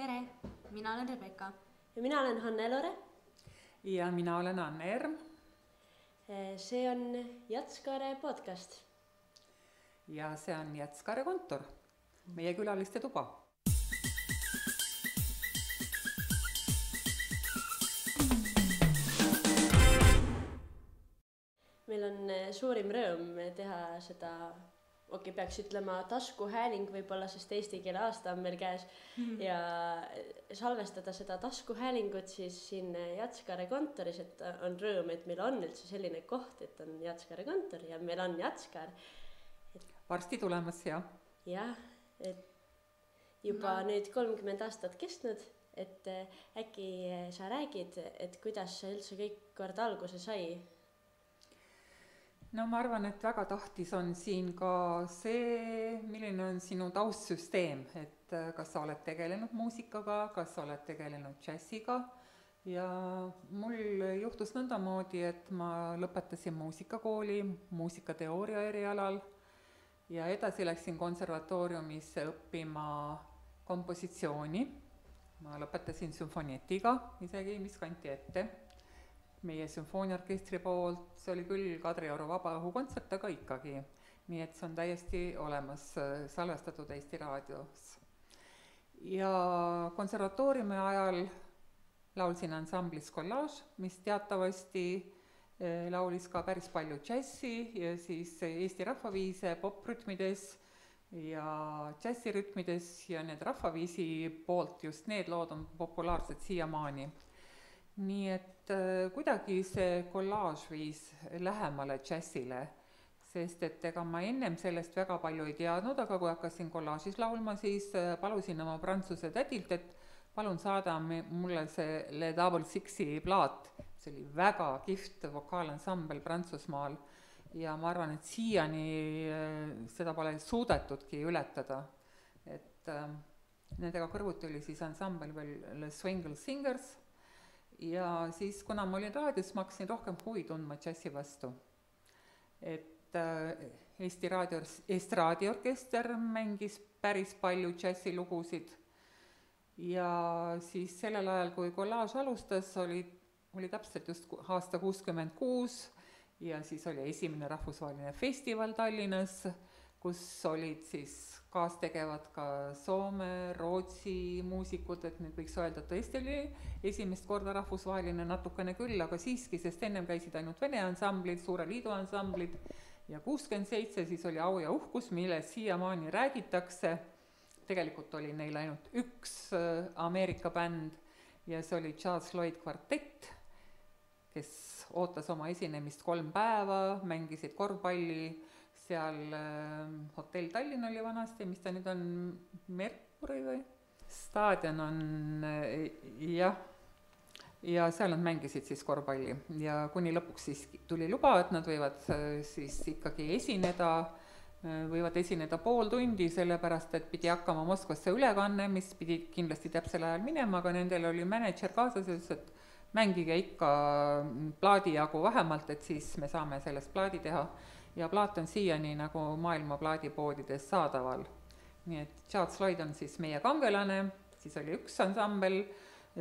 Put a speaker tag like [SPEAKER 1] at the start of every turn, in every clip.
[SPEAKER 1] Tere, mina olen Rebecca.
[SPEAKER 2] Ja mina olen Hanne-Lore.
[SPEAKER 3] Ja mina olen Anne Erm.
[SPEAKER 2] See on Jatskare podcast.
[SPEAKER 3] Ja see on Jatskare kontor, meie külaliste tuba.
[SPEAKER 2] Meil on suurim rõõm teha seda, peaks ütlema taskuhääling võib-olla, sest eesti keele aasta on meil käes ja salvestada seda taskuhäälingut siis siin Jatskare kontoris, et on rõõm, et meil on üldse selline koht, et on Jatskare kontor ja meil on Jatskar.
[SPEAKER 3] Varsti tulemas, jah.
[SPEAKER 2] Jah, et juba nüüd 30 aastat kestnud, et äkki sa räägid, et kuidas see üldse kõik kord alguse sai?
[SPEAKER 3] No ma arvan, et väga tahtis on siin ka see, milline on sinu taustsüsteem, et kas sa oled tegelenud muusikaga, kas sa oled tegelenud džässiga ja mul juhtus nõndamoodi, et ma lõpetasin muusikakooli muusikateooria erialal ja edasi läksin konservatooriumisse õppima kompositsiooni. Ma lõpetasin sümfonietiga isegi, mis kanti ette meie sümfooniaorkestri poolt, see oli küll Kadrioru vabaõhukontsert, aga ikkagi. Nii et see on täiesti olemas salvestatud Eesti raadios. Ja konservatooriumi ajal laulsin ansamblis Collage, mis teatavasti laulis ka päris palju džässi ja siis Eesti rahvaviise poprütmides ja džässirütmides ja need rahvaviisi poolt just need lood on populaarsed siiamaani. Nii et kuidagi see Collage viis lähemale džässile, sest et ega ma ennem sellest väga palju ei teadnud, aga kui hakkasin Collage'is laulma, siis palusin oma prantsuse tädilt, et palun saada mulle see Le Double Sixi plaat. See oli väga kihvt vokaalansambel Prantsusmaal ja ma arvan, et siiani seda pole suudetudki ületada. Et nendega kõrvuti oli siis ansambel veel Le Swingle Singers ja siis, kuna ma olin raadios, ma hakkasin rohkem huvi tundma džässi vastu. Et Eesti raadioorkester mängis päris palju džässilugusid ja siis sellel ajal, kui Collage alustas, oli täpselt just aasta 66 ja siis oli esimene rahvusvaheline festival Tallinnas, kus olid siis kaastegevad ka Soome, Rootsi muusikud, et nüüd võiks öelda, et tõesti oli esimest korda rahvusvaheline natukene küll, aga siiski, sest ennem käisid ainult Vene ansamblid, Suure Liidu ansamblid ja 67 siis oli Au ja uhkus, mille siiamaani räägitakse. Tegelikult oli neil ainult üks Ameerika bänd ja see oli Charles Lloyd kvartett, kes ootas oma esinemist 3 päeva, mängisid korvpalli, seal hotell Tallinn oli vanasti, mis ta nüüd on, Merkuri või? Staadion on, jah, ja seal nad mängisid siis korvpalli ja kuni lõpuks siis tuli luba, et nad võivad siis ikkagi võivad esineda pool tundi, sellepärast, et pidi hakkama Moskvasse ülekanne, mis pidi kindlasti täpsel ajal minema, aga nendel oli mänedžer kaasas, et mängige ikka plaadi jagu vähemalt, et siis me saame sellest plaadi teha. Ja plaat on siiani nagu maailma plaadipoodides saadaval. Nii et Charles Lloyd on siis meie kangelane, siis oli üks ansambel,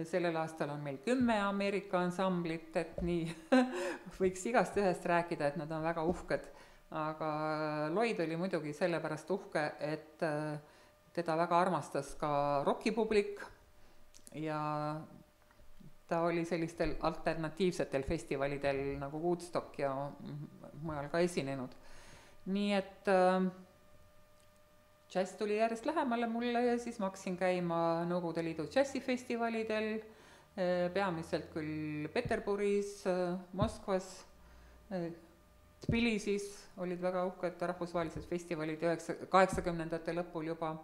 [SPEAKER 3] sellel aastal on meil 10 Ameerika ansamblit, et nii võiks igast ühest rääkida, et nad on väga uhked. Aga Lloyd oli muidugi sellepärast uhke, et teda väga armastas ka rockipublik ja ta oli sellistel alternatiivsetel festivalidel nagu Woodstock ja mujal ka esinenud. Nii et džäss tuli järjest lähemale mulle ja siis ma hakkasin käima Nõukogude Liidu džässifestivalidel, peamiselt küll Peterburis, Moskvas, Tbilisis olid väga uhked rahvusvahelised festivalid 80ndate lõpul juba.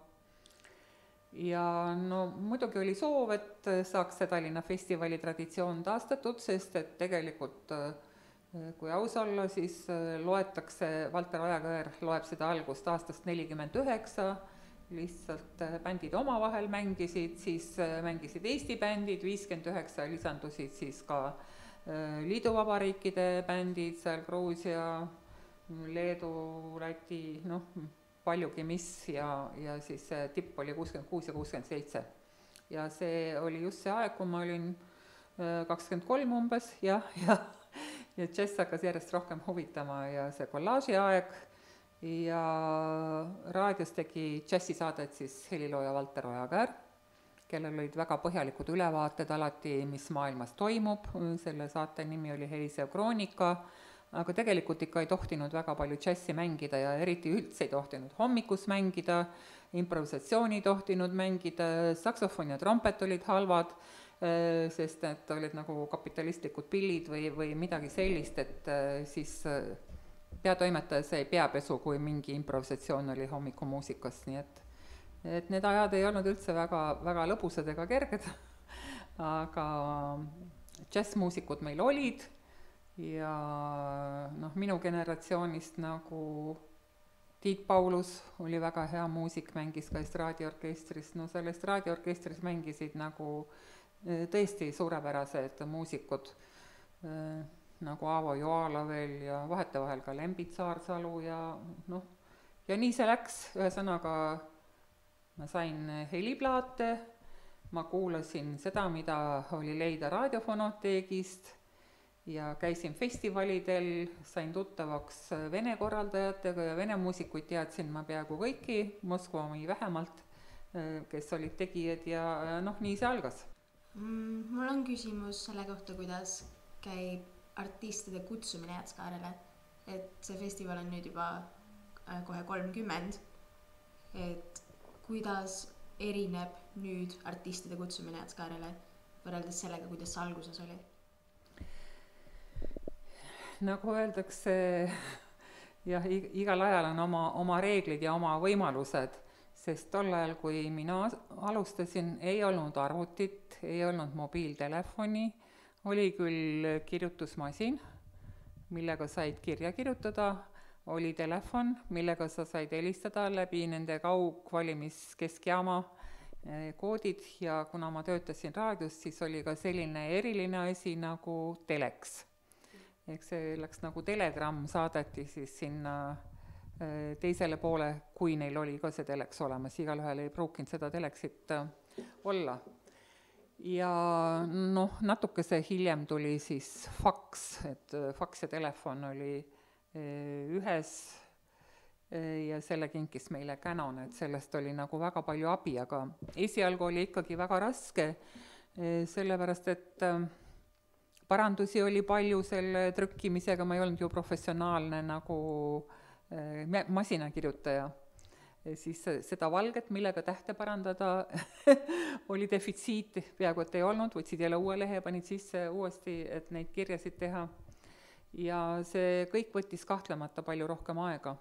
[SPEAKER 3] Ja no muidugi oli soov, et saaks see Tallinna festivali traditsioon taastatud, sest et tegelikult, kui aus olla, siis loetakse, Valter Ojakõer loeb seda algust aastast 49, lihtsalt bändid omavahel mängisid, siis mängisid Eesti bändid, 59 lisandusid siis ka liiduvabariikide bändid, seal Gruusia, Leedu, Läti, paljugi mis ja siis tipp oli 66 ja 67. ja see oli just see aeg, kui ma olin 23 umbes ja džäss hakkas järjest rohkem huvitama ja see kollaaži aeg ja raadios tegi džässisaadet siis helilooja Valter Ojakäär, kellel olid väga põhjalikud ülevaated alati, mis maailmas toimub, selle saate nimi oli Helisev Kroonika, aga tegelikult ikka ei tohtinud väga palju džässi mängida ja eriti üldse ei tohtinud hommikus mängida, improvisatsiooni ei tohtinud mängida, saksofon ja trompet olid halvad, sest need olid nagu kapitalistlikud pillid või midagi sellist, et siis peatoimetaja sai peapesu, kui mingi improvisatsioon oli hommikumuusikas, nii et need ajad ei olnud üldse väga lõbusad ega kerged, aga džässmuusikud meil olid ja minu generatsioonist nagu Tiit Paulus oli väga hea muusik, mängis ka estraadiorkestris, seal estraadiorkestris mängisid nagu tõesti suurepärased muusikud, nagu Aavo Joala veel ja vahetevahel ka Lembit Saarsalu ja nii see läks, ühesõnaga ma sain heliplaate, ma kuulasin seda, mida oli leida raadiofonoteegist ja käisin festivalidel, sain tuttavaks vene korraldajatega ja vene muusikuid teadsin ma peaaegu kõiki, Moskva omi vähemalt, kes olid tegijad ja nii see algas.
[SPEAKER 1] Mul on küsimus selle kohta, kuidas käib artistide kutsumine Jäätskaarele, et see festival on nüüd juba kohe 30, et kuidas erineb nüüd artistide kutsumine Jäätskaarele võrreldes sellega, kuidas see alguses oli?
[SPEAKER 3] Nagu öeldakse, jah, igal ajal on oma reeglid ja oma võimalused, sest tol ajal, kui mina alustasin, ei olnud arvutit, ei olnud mobiiltelefoni, oli küll kirjutusmasin, millega said kirja kirjutada, oli telefon, millega sa said helistada läbi nende kaugvalimiskeskjaama koodid ja kuna ma töötasin raadios, siis oli ka selline eriline asi nagu teleks. Ehk see läks nagu telegramm, saadeti siis sinna teisele poole, kui neil oli ka see teleks olemas, igalühel ei pruukinud seda teleksit olla. Ja natukese hiljem tuli siis faks, et faks ja telefon oli ühes ja selle kinkis meile Canon, et sellest oli nagu väga palju abi, aga esialgu oli ikkagi väga raske, sellepärast et parandusi oli palju selle trükkimisega, ma ei olnud ju professionaalne nagu masinakirjutaja. Siis seda valget, millega tähte parandada, oli defitsiit, peaaegu et ei olnud, võtsid jälle uue lehe, panid sisse uuesti, et neid kirjasid teha. Ja see kõik võttis kahtlemata palju rohkem aega.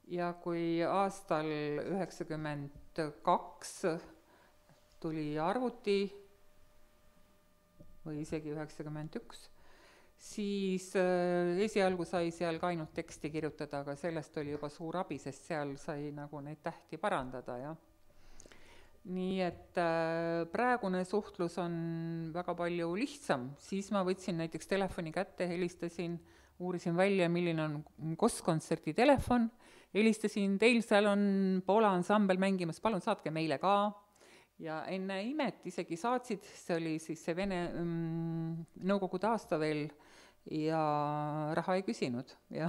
[SPEAKER 3] Ja kui aastal 92 tuli arvuti, või isegi 91, siis esialgu sai seal ka ainult teksti kirjutada, aga sellest oli juba suur abi, sest seal sai nagu neid tähti parandada, jah. Nii et praegune suhtlus on väga palju lihtsam, siis ma võtsin näiteks telefoni kätte, helistasin, uurisin välja, milline on Kostkontserdi telefon, helistasin, teil seal on Poola ansambel mängimas, palun saatke meile ka. Ja enne imet isegi saatsid, see oli siis see Vene nõukogude aasta veel ja raha ei küsinud. Ja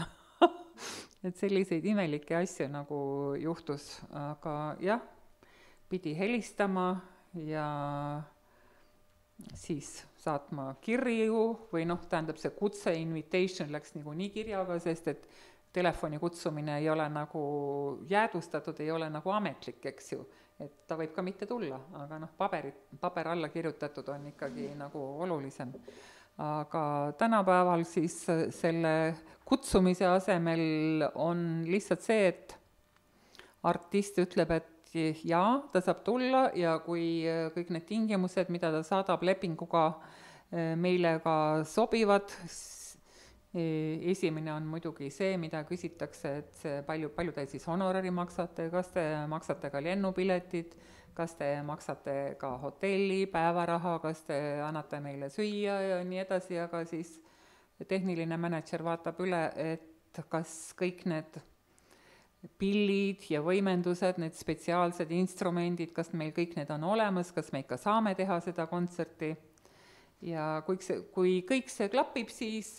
[SPEAKER 3] et selliseid imelikke asju nagu juhtus, aga jah, pidi helistama ja siis saatma kirju või tähendab see kutse, invitation läks nagu nii kirjaga, sest et telefoni kutsumine ei ole nagu jäädvustatud, ei ole nagu ametlik, eks ju. Et ta võib ka mitte tulla, aga paber alla kirjutatud on ikkagi nagu olulisem. Aga tänapäeval siis selle kutsumise asemel on lihtsalt see, et artist ütleb, et jaa, ta saab tulla ja kui kõik need tingimused, mida ta saadab lepinguga meile ka sobivad, esimene on muidugi see, mida küsitakse, et see palju te siis honorari maksate, kas te maksate ka lennupiletid, kas te maksate ka hotelli, päevaraha, kas te annate meile süüa ja nii edasi, aga siis tehniline mänedžer vaatab üle, et kas kõik need pillid ja võimendused, need spetsiaalsed instrumendid, kas meil kõik need on olemas, kas me ikka saame teha seda kontserti. Ja kui kõik see klapib, siis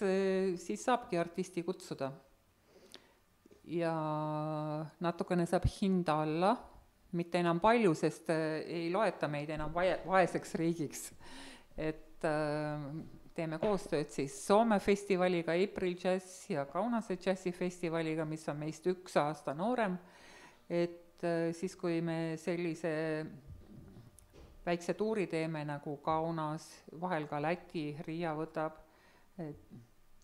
[SPEAKER 3] saabki artisti kutsuda. Ja natukene saab hinda alla, mitte enam palju, sest ei loeta meid enam vaeseks riigiks. Et teeme koostööd siis Soome festivaliga, April Jazz ja Kaunase džässifestivaliga, mis on meist 1 aasta noorem. Et siis, kui me sellise väikse tuuri teeme nagu Kaunas, vahel ka Läti, Riia võtab,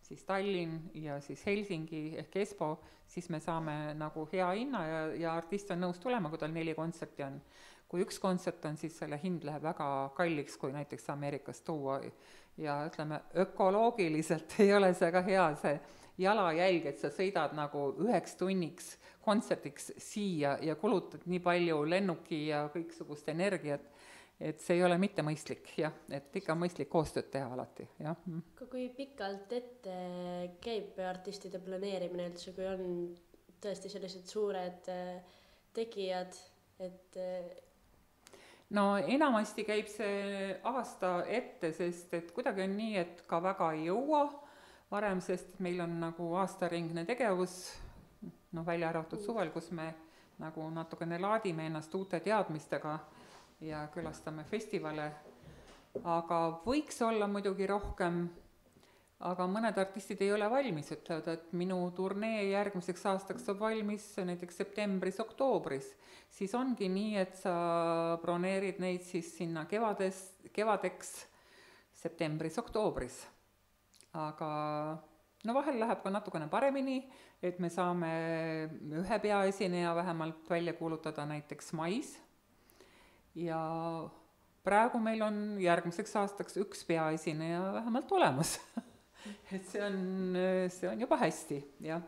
[SPEAKER 3] siis Tallinn ja siis Helsingi ehk Espo, siis me saame nagu hea hinna ja artist on nõus tulema, kui tal 4 kontserti on. Kui 1 kontsert on, siis selle hind läheb väga kalliks, kui näiteks Ameerikast tuua. Ja ütleme, ökoloogiliselt ei ole see ka hea see jalajälg, et sa sõidad nagu 9 tunniks kontsertiks siia ja kulutad nii palju lennuki ja kõiksugust energiat, et see ei ole mitte mõistlik, jah, et ikka mõistlik koostööd teha alati, jah.
[SPEAKER 2] Kui pikalt ette käib artistide planeerimine üldse, kui on tõesti sellised suured tegijad, et
[SPEAKER 3] no enamasti käib see aasta ette, sest et kuidagi on nii, et ka väga ei jõua varem, sest meil on nagu aastaringne tegevus, välja arvatud suvel, kus me nagu natukene laadime ennast uute teadmistega ja külastame festivale, aga võiks olla muidugi rohkem, aga mõned artistid ei ole valmis, ütlevad, et minu turnee järgmiseks aastaks saab valmis näiteks septembris-oktoobris, siis ongi nii, et sa broneerid neid siis sinna kevadeks septembris-oktoobris. Aga vahel läheb ka natukene paremini, et me saame ühe peaesineja vähemalt välja kuulutada näiteks mais ja praegu meil on järgmiseks aastaks 1 peaesineja vähemalt olemas. Et see on juba hästi, jah.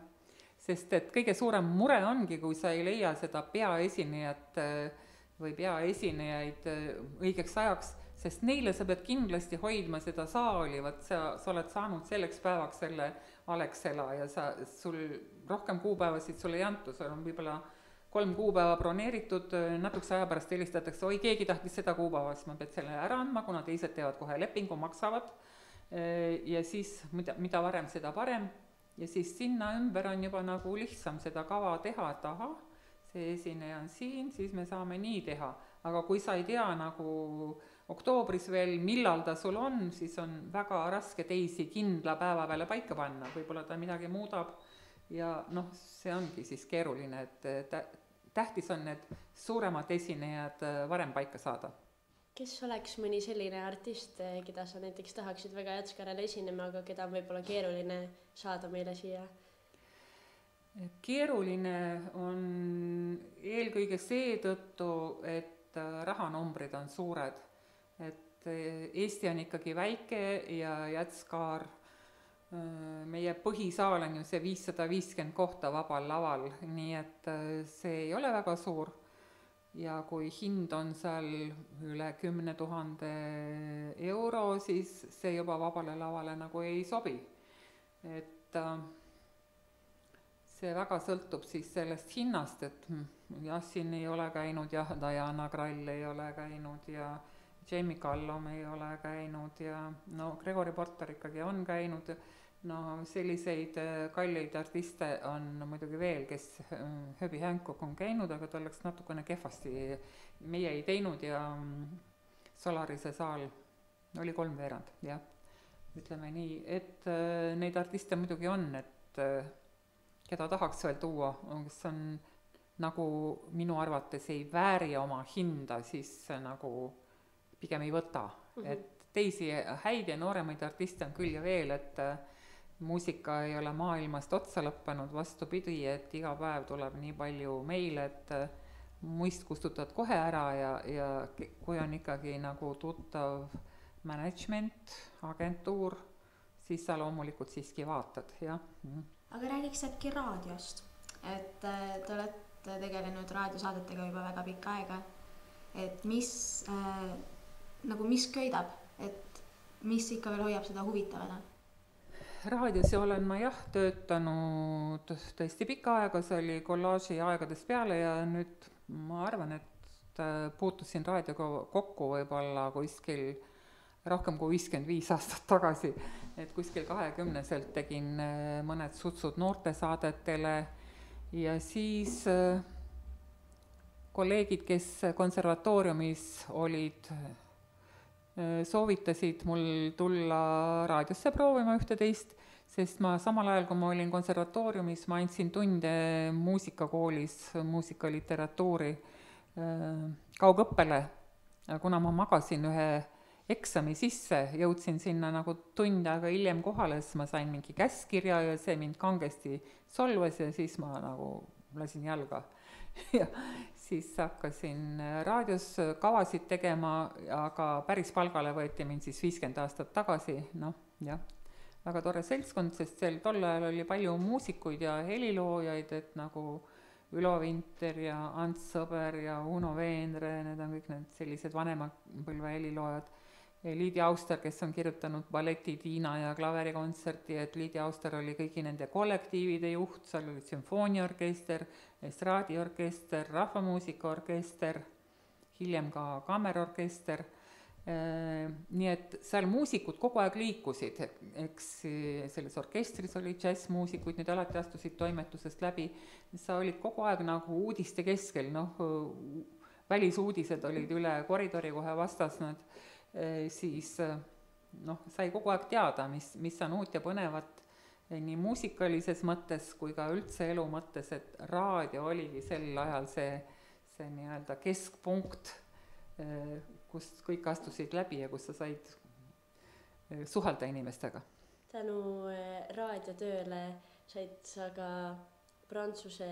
[SPEAKER 3] Sest et kõige suurem mure ongi, kui sa ei leia seda peaesinejat või peaesinejaid õigeks ajaks, sest neile sa pead kindlasti hoidma seda saali, sa oled saanud selleks päevaks selle Alexela ja sul rohkem kuupäevasid sul ei antu, sul on võib-olla 3 kuupäeva broneeritud, natukese aja pärast helistatakse, oi, keegi tahtis seda kuupäeva, siis ma pead selle ära andma, kuna teised teevad kohe lepingu, maksavad ja siis mida varem, seda parem ja siis sinna ümber on juba nagu lihtsam seda kava teha, et aha, see esineja on siin, siis me saame nii teha, aga kui sa ei tea nagu oktoobris veel, millal ta sul on, siis on väga raske teisi kindla päeva peale paika panna, võib-olla ta midagi muudab ja see ongi siis keeruline, et tähtis on need suuremad esinejad varem paika saada.
[SPEAKER 2] Kes oleks mõni selline artist, keda sa näiteks tahaksid väga Jazz-Karele esinema, aga keda on võib-olla keeruline saada meile siia?
[SPEAKER 3] Keeruline on eelkõige seetõttu, et rahanumbrid on suured. Et Eesti on ikkagi väike ja Jazz-Kar, meie põhisaal on ju see 550 kohta vabal laval, nii et see ei ole väga suur. Ja kui hind on seal üle 10 000 euro, siis see juba vabale lavale nagu ei sobi. Et see väga sõltub siis sellest hinnast, et Jassin ei ole käinud ja Diana Krall ei ole käinud ja Jamie Callum ei ole käinud ja Gregory Porter ikkagi on käinud. Selliseid kalleid artiste on muidugi veel, kes Herbie Hancock on käinud, aga ta oleks natukene kehvasti. Meie ei teinud ja Solarise saal oli 3/4, jah. Ütleme nii, et neid artiste muidugi on, et keda tahaks veel tuua, kes on nagu minu arvates ei vääri oma hinda, siis nagu pigem ei võta. Et teisi häid ja nooremaid artiste on küll ja veel, et muusika ei ole maailmast otsa lõppenud, vastupidi, et iga päev tuleb nii palju meile, et muist kustutad kohe ära ja kui on ikkagi nagu tuttav management, agentuur, siis sa loomulikult siiski vaatad, jah.
[SPEAKER 1] Aga räägiks äkki raadiost, et te olete tegelenud raadiosaadetega juba väga pikka aega, et mis köidab, et mis ikka veel hoiab seda huvitavana?
[SPEAKER 3] raadios olen ma jah töötanud tõesti pikka aega, see oli kollaaži aegadest peale ja nüüd ma arvan, et puutusin raadioga kokku võib-olla kuskil rohkem kui 55 aastat tagasi, et kuskil 20-selt tegin mõned sutsud noortesaadetele ja siis kolleegid, kes konservatooriumis olid, soovitasid mul tulla raadiosse proovima ühte-teist, sest ma samal ajal, kui ma olin konservatooriumis, ma andsin tunde muusikakoolis, muusikaliteratuuri kaugõppele. Kuna ma magasin ühe eksami sisse, jõudsin sinna nagu tund aega hiljem kohale, siis ma sain mingi käskkirja ja see mind kangesti solvas ja siis ma nagu lasin jalga. Ja siis hakkasin raadios kavasid tegema, aga päris palgale võeti mind siis 50 aastat tagasi, noh jah, väga tore seltskond, sest tol ajal oli palju muusikuid ja heliloojaid, et nagu Ülo Vinter ja Ants Sõber ja Uno Veenre, need on kõik need sellised vanema põlve heliloojad. Liidi Auster, kes on kirjutanud balleti Tiina ja klaverikontserti, et Liidi Auster oli kõigi nende kollektiivide juht, seal oli sümfooniaorkester, estraadiorkester, rahvamuusikaorkester, hiljem ka kammerorkester. Nii et seal muusikud kogu aeg liikusid, eks selles orkestris oli džässmuusikuid, need alati astusid toimetusest läbi, sa olid kogu aeg nagu uudiste keskel, noh, välisuudised olid üle koridori kohe vastas, siis noh, sai kogu aeg teada, mis on uut ja põnevat nii muusikalises mõttes kui ka üldse elu mõttes, et raadio oligi sel ajal see nii-öelda keskpunkt, kust kõik astusid läbi ja kus sa said suhelda inimestega.
[SPEAKER 2] Tänu raadiotööle said sa ka Prantsuse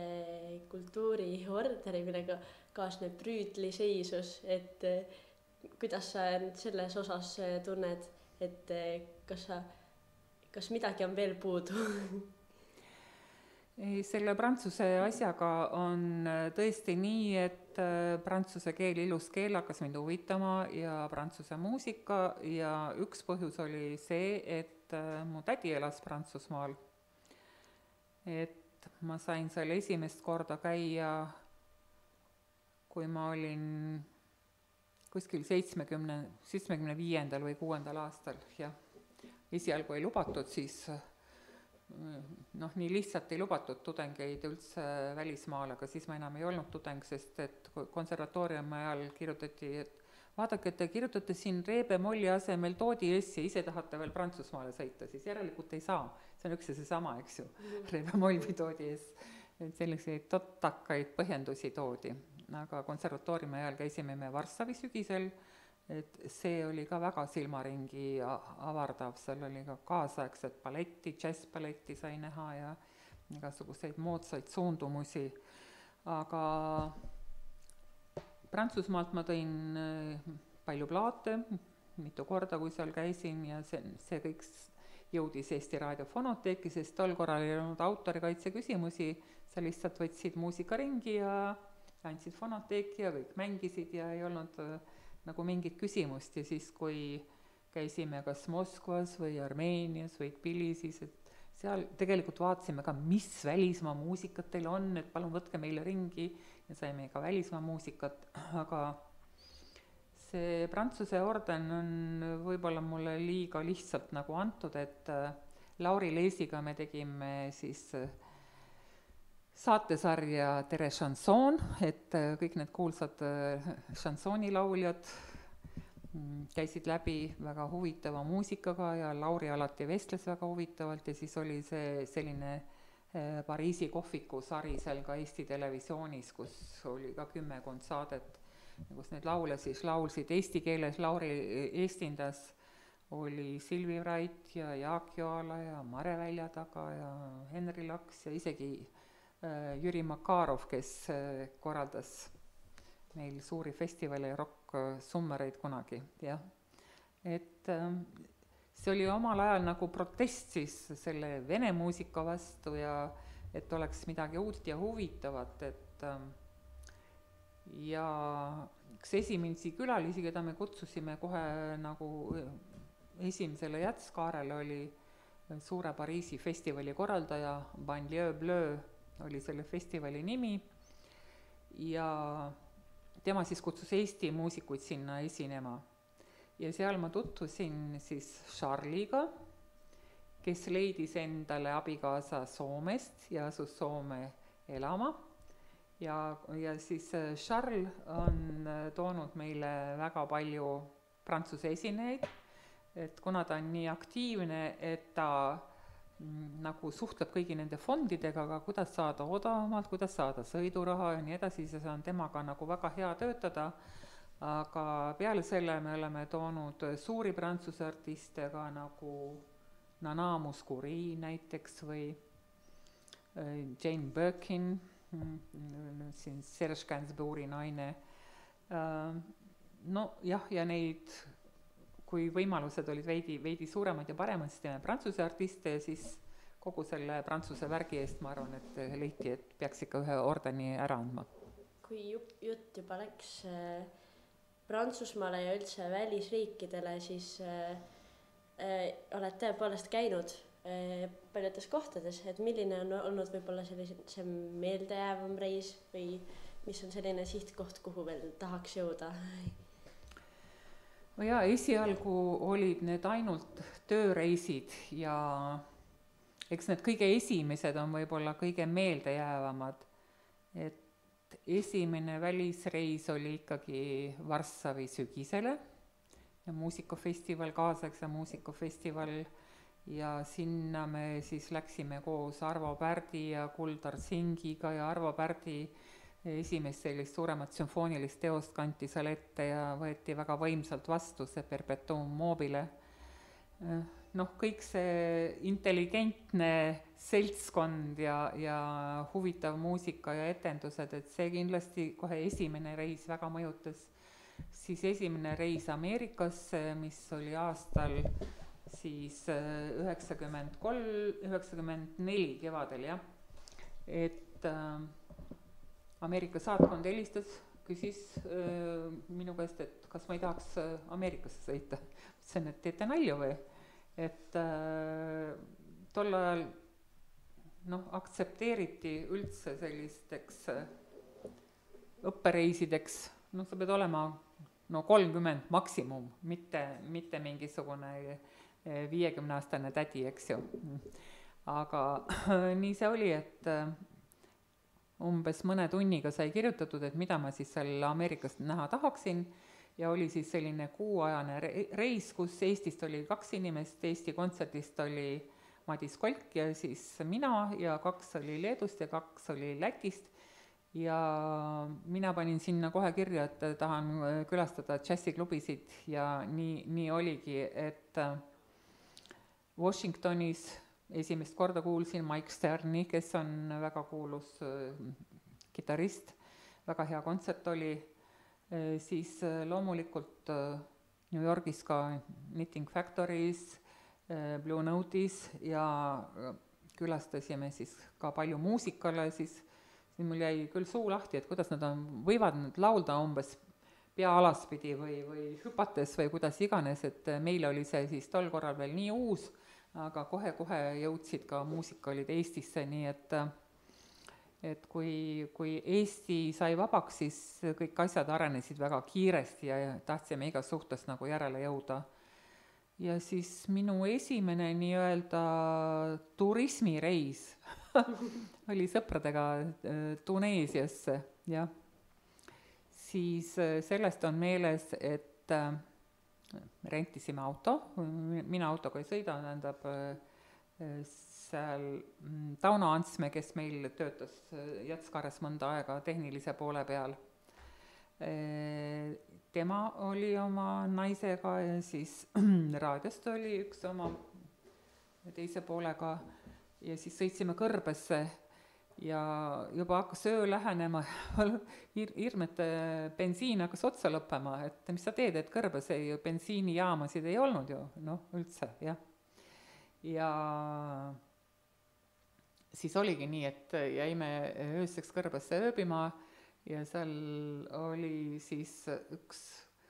[SPEAKER 2] kultuuriorderi, millega kaasneb prüütliseisus, et kuidas sa selles osas tunned, et kas midagi on veel puudu?
[SPEAKER 3] Selle prantsuse asjaga on tõesti nii, et prantsuse keel, ilus keel hakkas mind huvitama ja prantsuse muusika ja üks põhjus oli see, et mu tädi elas Prantsusmaal. Et ma sain seal esimest korda käia, kui ma olin kuskil 75. või 6. aastal, jah. Esialgu ei lubatud, siis noh, nii lihtsalt ei lubatud tudengeid üldse välismaal, aga siis ma enam ei olnud tudeng, sest et konservatooriumi ajal kirjutati, et vaadake, et te kirjutate siin Reebe-Molli asemel Toodi S ja ise tahate veel Prantsusmaale sõita, siis järelikult ei saa. See on üks ja seesama, eks ju, Reebe-Moll või Toodi S. Et selliseid totakaid põhjendusi toodi, aga konservatooriumi ajal käisime me Varssavi sügisel, et see oli ka väga silmaringi avardav, seal oli ka kaasaegset balletti, džässballetti sai näha ja igasuguseid moodsaid suundumusi, aga Prantsusmaalt ma tõin palju plaate, mitu korda, kui seal käisin ja see kõik jõudis Eesti Raadio fonoteeki, sest tol korral ei olnud autorikaitse küsimusi, sa lihtsalt võtsid muusikaringi ja andsid fonoteeki ja kõik mängisid ja ei olnud nagu mingit küsimust ja siis, kui käisime kas Moskvas või Armeenias või Tbilisis, et seal tegelikult vaatasime ka, mis välismaa muusikat teil on, et palun võtke meile ringi ja saime ka välismaa muusikat, aga see Prantsuse orden on võib-olla mulle liiga lihtsalt nagu antud, et Lauri Leesiga me tegime siis saatesarja Tere Chanson, et kõik need kuulsad šansoonilauljad käisid läbi väga huvitava muusikaga ja Lauri alati vestles väga huvitavalt ja siis oli see selline Pariisi kohviku sari seal ka Eesti Televisioonis, kus oli ka 10 saadet, kus need laule siis laulsid eesti keeles, Lauri eestindas oli Silvi Vrait ja Jaak Joala ja Mare Väljataga ja Henri Laks ja isegi Jüri Makarov, kes korraldas meil suuri festivale ja rock-summereid kunagi, jah. Et see oli omal ajal nagu protest siis selle vene muusika vastu ja et oleks midagi uut ja huvitavat, et ja üks esimesi külalisi, keda me kutsusime kohe nagu esimesele jätskaarele, oli suure Pariisi festivali korraldaja, Banlieue Bleu oli selle festivali nimi ja tema siis kutsus Eesti muusikuid sinna esinema. Ja seal ma tutvusin siis Charliga, kes leidis endale abikaasa Soomest ja asus Soome elama. Ja siis Charles on toonud meile väga palju prantsuse esinejaid, et kuna ta on nii aktiivne, et ta nagu suhtleb kõigi nende fondidega, aga kuidas saada odavamalt, kuidas saada sõiduraha ja nii edasi, siis on temaga nagu väga hea töötada. Aga peale selle me oleme toonud suuri prantsuse artiste ka nagu Nana Mouskouri näiteks või Jane Birkin, siin Serge Gainsbourgi naine. No jah, ja neid, kui võimalused olid veidi suuremad ja paremad, siis teeme prantsuse artiste ja siis kogu selle prantsuse värgi eest ma arvan, et leiti, et peaks ikka ühe ordeni ära andma.
[SPEAKER 2] Kui jutt juba läks Prantsusmaale ja üldse välisriikidele, siis oled tõepoolest käinud paljudes kohtades, et milline on olnud võib-olla see meeldejäävam reis või mis on selline sihtkoht, kuhu veel tahaks jõuda?
[SPEAKER 3] No jaa, esialgu olid need ainult tööreisid ja eks need kõige esimesed on võib-olla kõige meeldejäävamad. Et esimene välisreis oli ikkagi Varssavi sügisele ja muusikafestival, kaasaegse muusikafestival ja sinna me siis läksime koos Arvo Pärdi ja Kuldar Singiga ja Arvo Pärdi esimest sellist suuremat sümfoonilist teost kanti seal ette ja võeti väga võimsalt vastu see Perpetuum mobile. Noh, kõik see intelligentne seltskond ja huvitav muusika ja etendused, et see kindlasti kohe esimene reis väga mõjutas. Siis esimene reis Ameerikasse, mis oli aastal siis 94 kevadel, jah. Et Ameerika saatkond helistas, küsis minu käest, et kas ma ei tahaks Ameerikasse sõita. Ütlesin, et teete nalju või? Et tol ajal aktsepteeriti üldse sellisteks õppereisideks, sa pead olema 30 maksimum, mitte mingisugune 50-aastane tädi, eks ju. Aga nii see oli, et umbes mõne tunniga sai kirjutatud, et mida ma siis seal Ameerikast näha tahaksin ja oli siis selline kuuajane reis, kus Eestist oli 2 inimest, Eesti kontserdist oli Madis Kolk ja siis mina ja 2 oli Leedust ja 2 oli Lätist ja mina panin sinna kohe kirja, et tahan külastada džässiklubisid ja nii oligi, et Washingtonis esimest korda kuulsin Mike Sterni, kes on väga kuulus kitarrist, väga hea kontsert oli, siis loomulikult New Yorgis ka Knitting Factories, Blue Note'is ja külastasime siis ka palju muusikale, siis mul jäi küll suu lahti, et kuidas nad võivad nüüd laulda umbes pea alaspidi või hüpates või kuidas iganes, et meil oli see siis tol korral veel nii uus, aga kohe jõudsid ka muusikalid Eestisse, nii et kui Eesti sai vabaks, siis kõik asjad arenesid väga kiiresti ja tahtsime igas suhtes nagu järele jõuda. Ja siis minu esimene nii-öelda turismireis oli sõpradega Tuneesiasse, jah. Siis sellest on meeles, et rentisime auto, mina autoga ei sõida, tähendab seal Tauno Antsme, kes meil töötas Jatskares mõnda aega tehnilise poole peal. Tema oli oma naisega ja siis raadiost oli üks oma teise poolega ja siis sõitsime Kõrbesse ja juba hakkas öö lähenema, hirmete bensiin hakkas otsa lõppema, et mis sa teed, et Kõrbes bensiinijaamasid ei olnud ju, üldse, jah. Ja siis oligi nii, et jäime ööseks Kõrbesse ööbima ja seal oli siis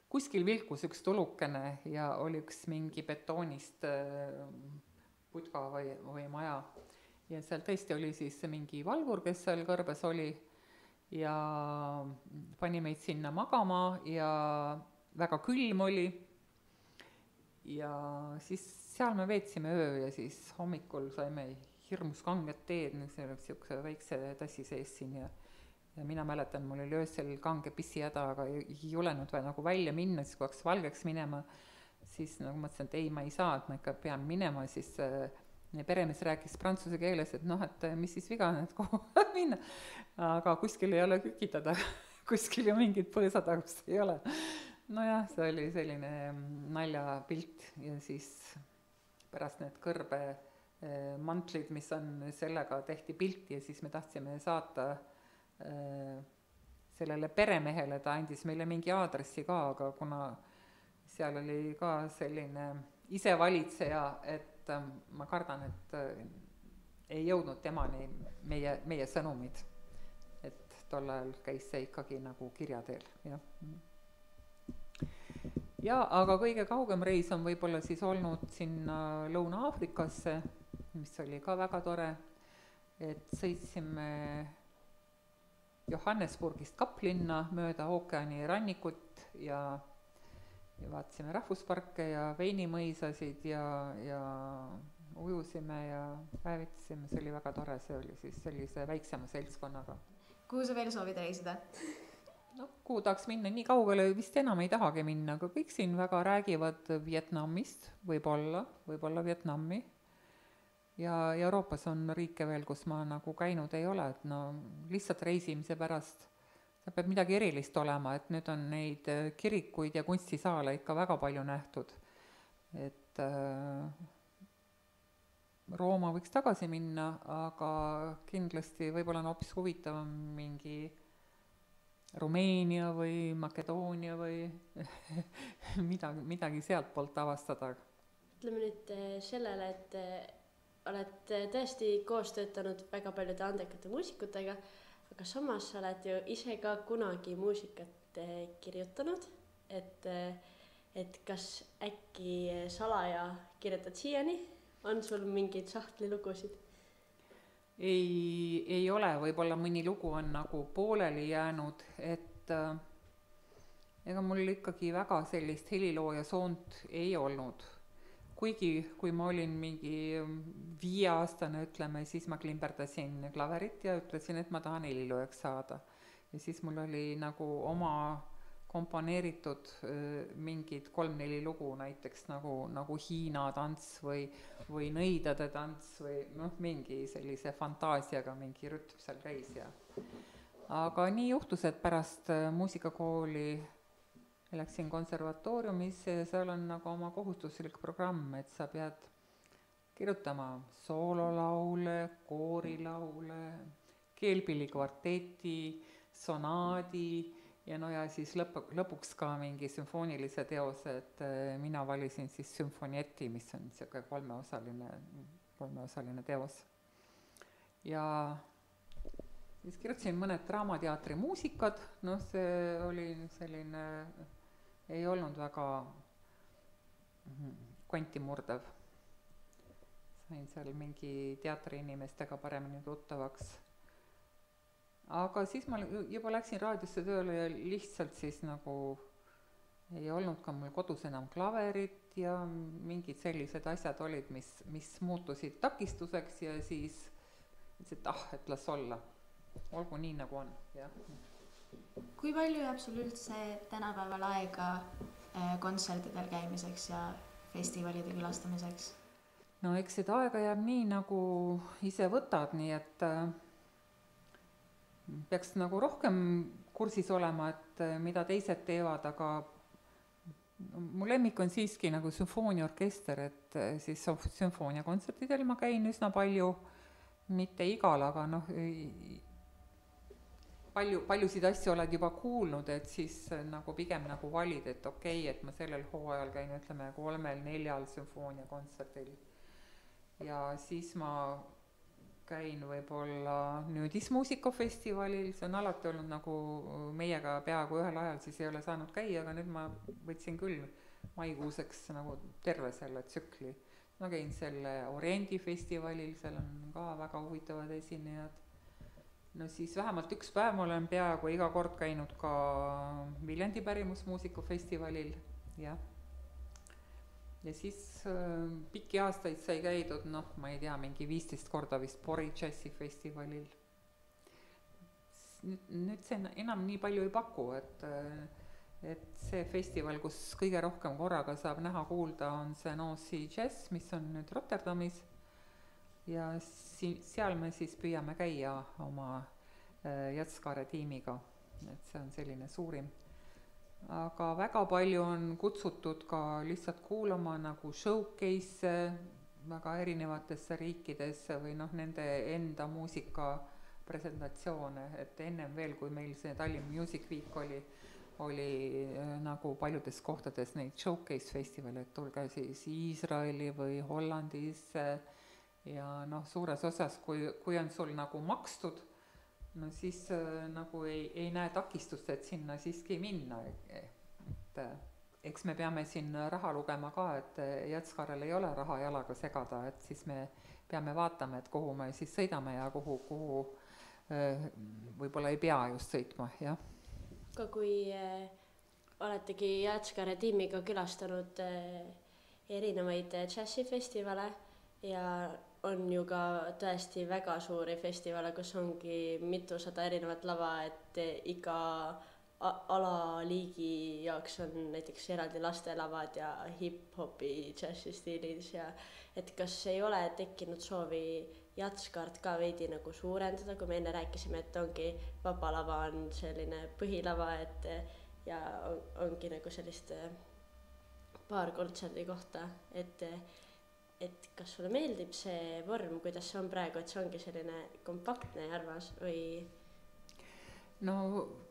[SPEAKER 3] kuskil vilkus üks tulukene ja oli üks mingi betoonist putka või maja. Ja seal tõesti oli siis mingi valvur, kes seal kõrbes oli ja pani meid sinna magama ja väga külm oli. Ja siis seal me veetsime öö ja siis hommikul saime hirmus kanget teed, see oleks niisuguse väikse tassi sees siin ja mina mäletan, mul oli öösel kange pissihäda, aga ei julenud nagu välja minna, siis kui hakkas valgeks minema, siis nagu mõtlesin, et ei, ma ei saa, et ma ikka pean minema, siis peremees rääkis prantsuse keeles, et noh, et mis siis viga on, et kuhu minna. Aga kuskil ei ole kükitada, kuskil ju mingit põõsatagust ei ole. Nojah, see oli selline naljapilt ja siis pärast need kõrbe mantlid, mis on, sellega tehti pilti ja siis me tahtsime saata sellele peremehele, ta andis meile mingi aadressi ka, aga kuna seal oli ka selline isevalitseja, et ma kardan, et ei jõudnud temani meie sõnumid. Et tol ajal käis see ikkagi nagu kirja teel, jah. Ja aga kõige kaugem reis on võib-olla siis olnud sinna Lõuna-Aafrikasse, mis oli ka väga tore, et sõitsime Johannesburgist Kaplinna mööda ookeani rannikut ja vaatasime rahvusparke ja veinimõisasid ja ujusime ja päevitasime, see oli väga tore, see oli siis sellise väiksema seltskonnaga.
[SPEAKER 1] Kuhu sa veel soovid reisida?
[SPEAKER 3] No, kuhu tahaks minna, nii kaugele vist enam ei tahagi minna, aga kõik siin väga räägivad Vietnamist, võib-olla Vietnami. Ja Euroopas on riike veel, kus ma nagu käinud ei ole, et no lihtsalt reisimise pärast see peab midagi erilist olema, et nüüd on neid kirikuid ja kunstisaale ikka väga palju nähtud. Et Rooma võiks tagasi minna, aga kindlasti võib-olla on hoopis huvitavam mingi Rumeenia või Makedoonia või midagi sealt poolt avastada.
[SPEAKER 2] Ütleme nüüd sellele, et oled tõesti koos töötanud väga paljude andekate muusikutega, aga samas sa oled ju ise ka kunagi muusikat kirjutanud, et kas äkki salaja kirjutad siiani? On sul mingeid sahtlilugusid?
[SPEAKER 3] Ei ole, võib-olla mõni lugu on nagu pooleli jäänud, et ega mul ikkagi väga sellist helilooja soont ei olnud. Kuigi, kui ma olin mingi 5-aastane, ütleme, siis ma klimberdasin klaverit ja ütlesin, et ma tahan heliloojaks saada. Ja siis mul oli nagu oma komponeeritud mingid 3-4 lugu, näiteks nagu Hiina tants või nõidade tants või mingi sellise fantaasiaga mingi rütm seal käis. Aga nii juhtus, et pärast muusikakooli läksin konservatooriumisse ja seal on nagu oma kohustuslik programm, et sa pead kirjutama soololaule, koorilaule, keelpillikvarteti, sonaadi ja ja siis lõpuks ka mingi sümfoonilise teose, et mina valisin siis sümfonieti, mis on niisugune kolmeosaline teos. Ja siis kirjutasin mõned Draamateatri muusikad, see oli selline, ei olnud väga kvantimurdev. Sain seal mingi teatriinimestega paremini tuttavaks. Aga siis ma juba läksin raadiosse tööle ja lihtsalt siis nagu ei olnud ka mul kodus enam klaverit ja mingid sellised asjad olid, mis muutusid takistuseks ja siis ütlesin, et las olla. Olgu nii nagu on, jah.
[SPEAKER 1] Kui palju jääb sul üldse tänapäeval aega kontsertidel käimiseks ja festivalide külastamiseks?
[SPEAKER 3] No eks seda aega jääb nii, nagu ise võtad, nii et peaks nagu rohkem kursis olema, et mida teised teevad, aga mu lemmik on siiski nagu sümfooniaorkester, et siis sümfooniakontsertidel ma käin üsna palju, mitte igal, aga paljusid asju oled juba kuulnud, et siis nagu pigem nagu valid, et okei, et ma sellel hooajal käin, ütleme 3-4 sümfooniakontserdil. Ja siis ma käin võib-olla Nüüdismuusikafestivalil, see on alati olnud nagu meiega peaaegu ühel ajal, siis ei ole saanud käia, aga nüüd ma võtsin küll maikuuseks nagu terve selle tsükli ma käin selle Oriendi festivalil, seal on ka väga huvitavad esinejad. No siis vähemalt üks päev ma olen peaaegu iga kord käinud ka Viljandi pärimusmuusikafestivalil, jah. Ja siis pikki aastaid sai käidud, noh, ma ei tea, mingi 15 korda vist Pori džässifestivalil. Nüüd see enam nii palju ei paku, et see festival, kus kõige rohkem korraga saab näha kuulda, on see Nancy Jazz, mis on nüüd Rotterdamis. Ja seal me siis püüame käia oma Jatskaare tiimiga, et see on selline suurim. Aga väga palju on kutsutud ka lihtsalt kuulama nagu showcase väga erinevatesse riikidesse või noh, nende enda muusika presentatsioone, et ennem veel, kui meil see Tallinn Music Week oli nagu paljudes kohtades neid showcase festivale, et tulge siis Iisraeli või Hollandisse ja noh, suures osas, kui on sul nagu makstud, no siis nagu ei näe takistust, et sinna siiski minna, et eks me peame siin raha lugema ka, et Jatskaarel ei ole raha jalaga segada, et siis me peame vaatama, et kuhu me siis sõidame ja kuhu võib-olla ei pea just sõitma, jah.
[SPEAKER 2] Ka kui oletegi Jatskaare tiimiga külastanud erinevaid džässifestivale ja on ju ka tõesti väga suuri festivale, kus ongi mitusada erinevat lava, et iga alaliigi jaoks on näiteks eraldi lastelavad ja hip-hopi džässistiilis ja et kas ei ole tekkinud soovi Jatskaart ka veidi nagu suurendada, kui me enne rääkisime, et ongi Vaba Lava on selline põhilava, et ja ongi nagu sellist paar kontserdi kohta, et kas sulle meeldib see vorm, kuidas see on praegu, et see ongi selline kompaktne ja armas või?
[SPEAKER 3] No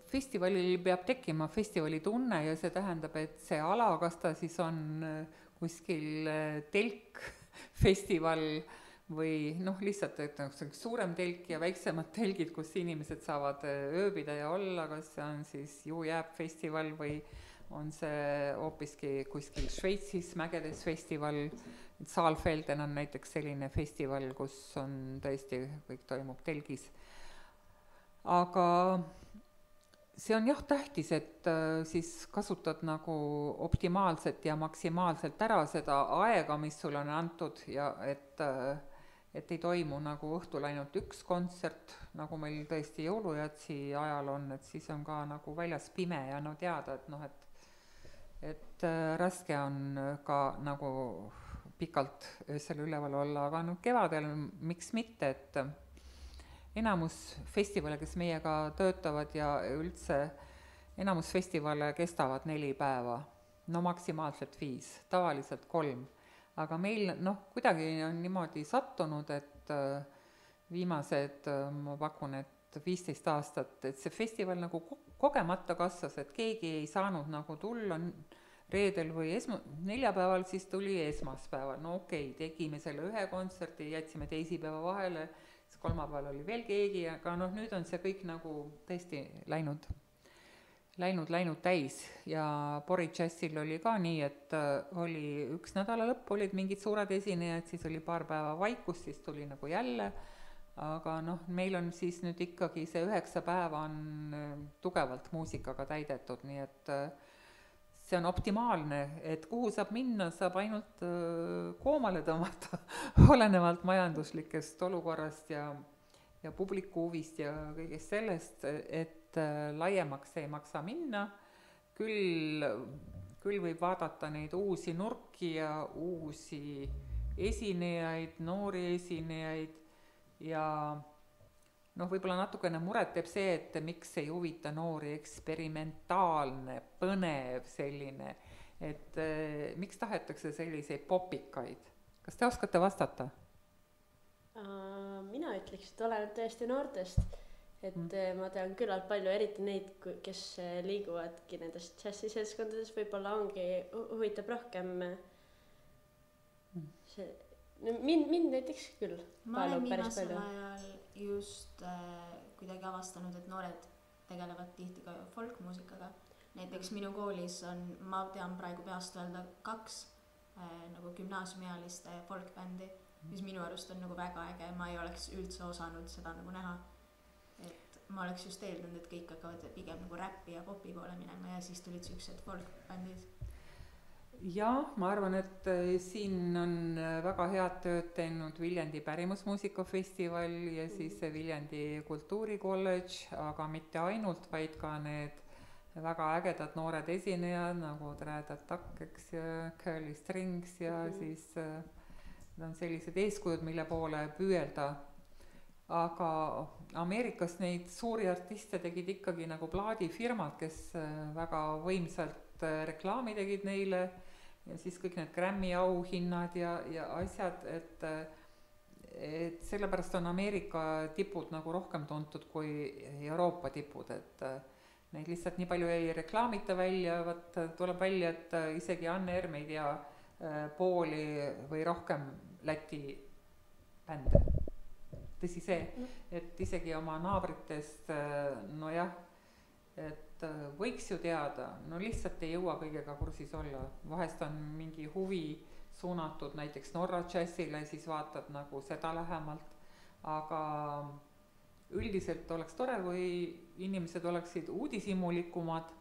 [SPEAKER 3] festivalil peab tekkima festivali tunne ja see tähendab, et see ala, kas ta siis on kuskil telkfestival või noh, lihtsalt et suurem telk ja väiksemad telgid, kus inimesed saavad ööbida ja olla, kas see on siis Jääb festival või on see hoopiski kuskil Šveitsis mägedes festival. Saalfelden on näiteks selline festival, kus on tõesti kõik toimub telgis. Aga see on jah tähtis, et siis kasutad nagu optimaalselt ja maksimaalselt ära seda aega, mis sulle on antud ja et ei toimu nagu õhtul ainult üks kontsert, nagu meil tõesti jõulujatsi ajal on, et siis on ka nagu väljas pime ja no teada, et noh, et raske on ka nagu pikalt öösel üleval olla, aga noh, kevadel miks mitte, et enamus festivale, kes meiega töötavad ja üldse enamus festivale kestavad 4 päeva, no maksimaalselt 5, tavaliselt 3. Aga meil noh, kuidagi on niimoodi sattunud, et viimased, ma pakun, et 15 aastat, et see festival nagu kogemata kasvas, et keegi ei saanud nagu tulla reedel või neljapäeval, siis tuli esmaspäeval. No okei, tegime selle ühe kontserti, jätsime teisipäeva vahele, siis kolmapäeval oli veel keegi, aga noh, nüüd on see kõik nagu tõesti läinud täis ja Pori džässil oli ka nii, et oli üks nädala lõpp, olid mingid suured esinejad, siis oli paar päeva vaikus, siis tuli nagu jälle, aga noh, meil on siis nüüd ikkagi see 9 päeva on tugevalt muusikaga täidetud, nii et see on optimaalne, et kuhu saab minna, saab ainult koomale tõmmata, olenevalt majanduslikest olukorrast ja publiku huvist ja kõigest sellest, et laiemaks ei maksa minna, küll võib vaadata neid uusi nurki ja uusi esinejaid, noori esinejaid ja noh, võib-olla natukene muret teeb see, et miks ei huvita noori eksperimentaalne, põnev selline, et miks tahetakse selliseid popikaid? Kas te oskate vastata?
[SPEAKER 2] Mina ütleks, et oleneb tõesti noortest, et ma tean küllalt palju, eriti neid, kes liiguvadki nendest džässiseltskondades, võib-olla ongi, huvitab rohkem see, mind näiteks küll.
[SPEAKER 1] Ma olen viimasel ajal just kuidagi avastanud, et noored tegelevad tihti ka folkmuusikaga. Näiteks minu koolis on, ma tean praegu peast öelda 2 nagu gümnaasiumiealiste folkbändi, mis minu arust on nagu väga äge, ma ei oleks üldse osanud seda nagu näha. Et ma oleks just eeldanud, et kõik hakkavad pigem nagu räppi ja popi poole minema ja siis tulid siuksed folkbändid.
[SPEAKER 3] Jah, ma arvan, et siin on väga head tööd teinud Viljandi pärimusmuusikafestival ja siis Viljandi kultuurikolledž, aga mitte ainult, vaid ka need väga ägedad noored esinejad nagu Trädad Takk, eks ja Curly Strings ja siis on sellised eeskujud, mille poole püüelda. Aga Ameerikas neid suuri artiste tegid ikkagi nagu plaadifirmad, kes väga võimsalt reklaami tegid neile ja siis kõik need Grammy auhinnad ja asjad, et sellepärast on Ameerika tipud nagu rohkem tuntud kui Euroopa tipud, et neid lihtsalt nii palju ei reklaamita välja, tuleb välja, et isegi Anne Erm ei tea pooli või rohkem Läti bände. Tõsi see, et isegi oma naabritest, no jah, et võiks ju teada, no lihtsalt ei jõua kõigega kursis olla. Vahest on mingi huvi suunatud näiteks Norra džässile, siis vaatad nagu seda lähemalt, aga üldiselt oleks tore, kui inimesed oleksid uudishimulikumad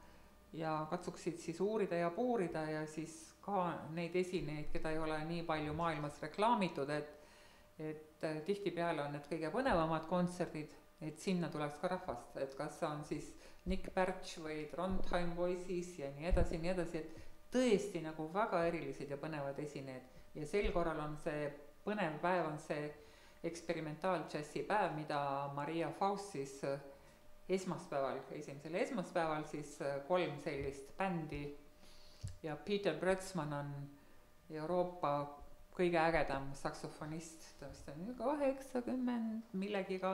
[SPEAKER 3] ja katsuksid siis uurida ja puurida ja siis ka neid esinejaid, keda ei ole nii palju maailmas reklaamitud, et tihtipeale on need kõige põnevamad kontserdid, et sinna tuleks ka rahvast, et kas on siis Nick Birch või Trondheim Voices ja nii edasi, et tõesti nagu väga erilised ja põnevad esinejad ja sel korral on see põnev päev, on see eksperimentaaljässi päev, mida Maria Faust siis esimesel esmaspäeval siis 3 sellist bändi ja Peter Brötzmann on Euroopa kõige ägedam saksofonist, ta vist on 80 millegiga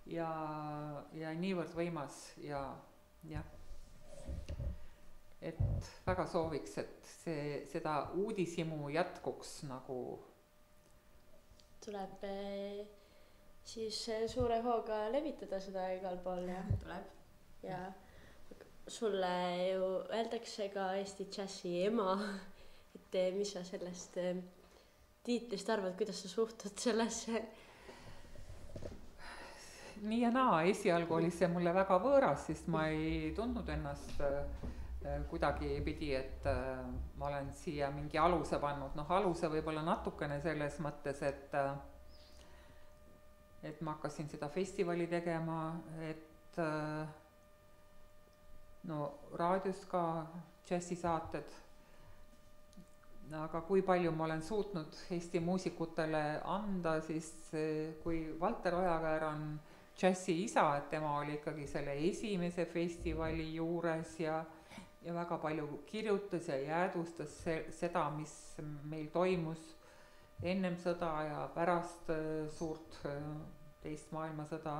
[SPEAKER 3] ja niivõrd võimas ja jah, et väga sooviks, et seda uudishimu jätkuks nagu
[SPEAKER 2] tuleb siis suure hooga levitada seda igal pool ja
[SPEAKER 1] tuleb
[SPEAKER 2] ja sulle ju öeldakse ka Eesti džässi ema, et mis sa sellest tiitlist arvad, kuidas sa suhtud sellesse?
[SPEAKER 3] Nii ja naa, esialgu oli see mulle väga võõras, sest ma ei tundnud ennast kuidagi pidi, et ma olen siia mingi aluse pannud, aluse võib-olla natukene selles mõttes, et ma hakkasin seda festivali tegema, et raadios ka džässisaated, aga kui palju ma olen suutnud Eesti muusikutele anda, siis kui Valter Ojakäär on džässi isa, et tema oli ikkagi selle esimese festivali juures ja väga palju kirjutas ja jäädvustas seda, mis meil toimus ennem sõda ja pärast suurt teist maailmasõda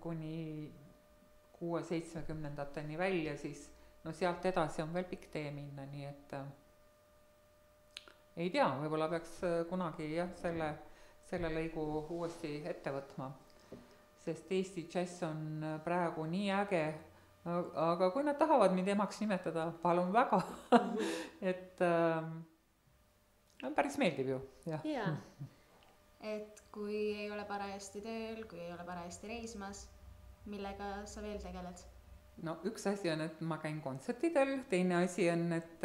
[SPEAKER 3] kuni 60-70-ndateni välja, siis sealt edasi on veel pikk tee minna, nii et ei tea, võib-olla peaks kunagi jah, selle lõigu uuesti ette võtma, sest Eesti džäss on praegu nii äge, aga kui nad tahavad mind emaks nimetada, palun väga, et päris meeldib ju, jah.
[SPEAKER 2] Jaa.
[SPEAKER 1] Et kui ei ole parajasti tööl, kui ei ole parajasti reismas, millega sa veel tegeled?
[SPEAKER 3] No üks asi on, et ma käin kontsertidel, teine asi on, et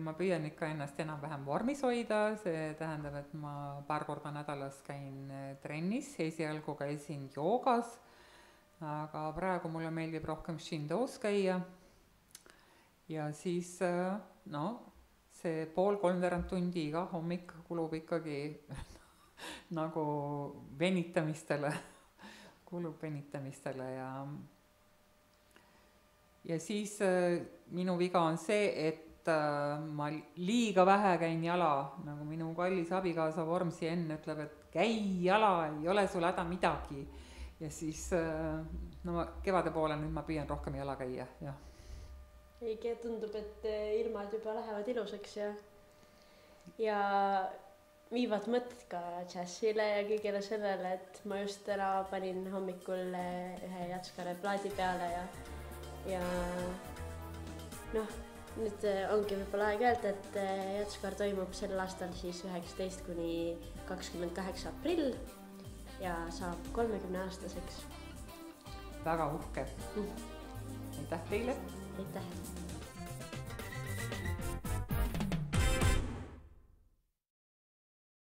[SPEAKER 3] ma püüan ikka ennast enam-vähem vormis hoida, see tähendab, et ma paar korda nädalas käin trennis, esialgu käisin joogas, aga praegu mulle meeldib rohkem Shindo's käia ja siis see 2–3 tundi iga hommik kulub ikkagi nagu venitamisele ja siis minu viga on see, et ma liiga vähe käin jala, nagu minu kallis abikaasa Vormsi enne ütleb, et käi jala, ei ole sul häda midagi. Ja siis kevade poole nüüd ma püüan rohkem jala käia, jah.
[SPEAKER 2] Õige, tundub, et ilmad juba lähevad ilusaks ja viivad mõtted ka džässile ja kõigele sellele, et ma just täna panin hommikul ühe Jatskare plaadi peale ja nüüd ongi võib-olla aeg öelda, et Jatskaar toimub sel aastal siis 19 kuni 28 aprill ja saab 30-aastaseks.
[SPEAKER 3] Väga uhke. Aitäh teile!
[SPEAKER 2] Aitäh!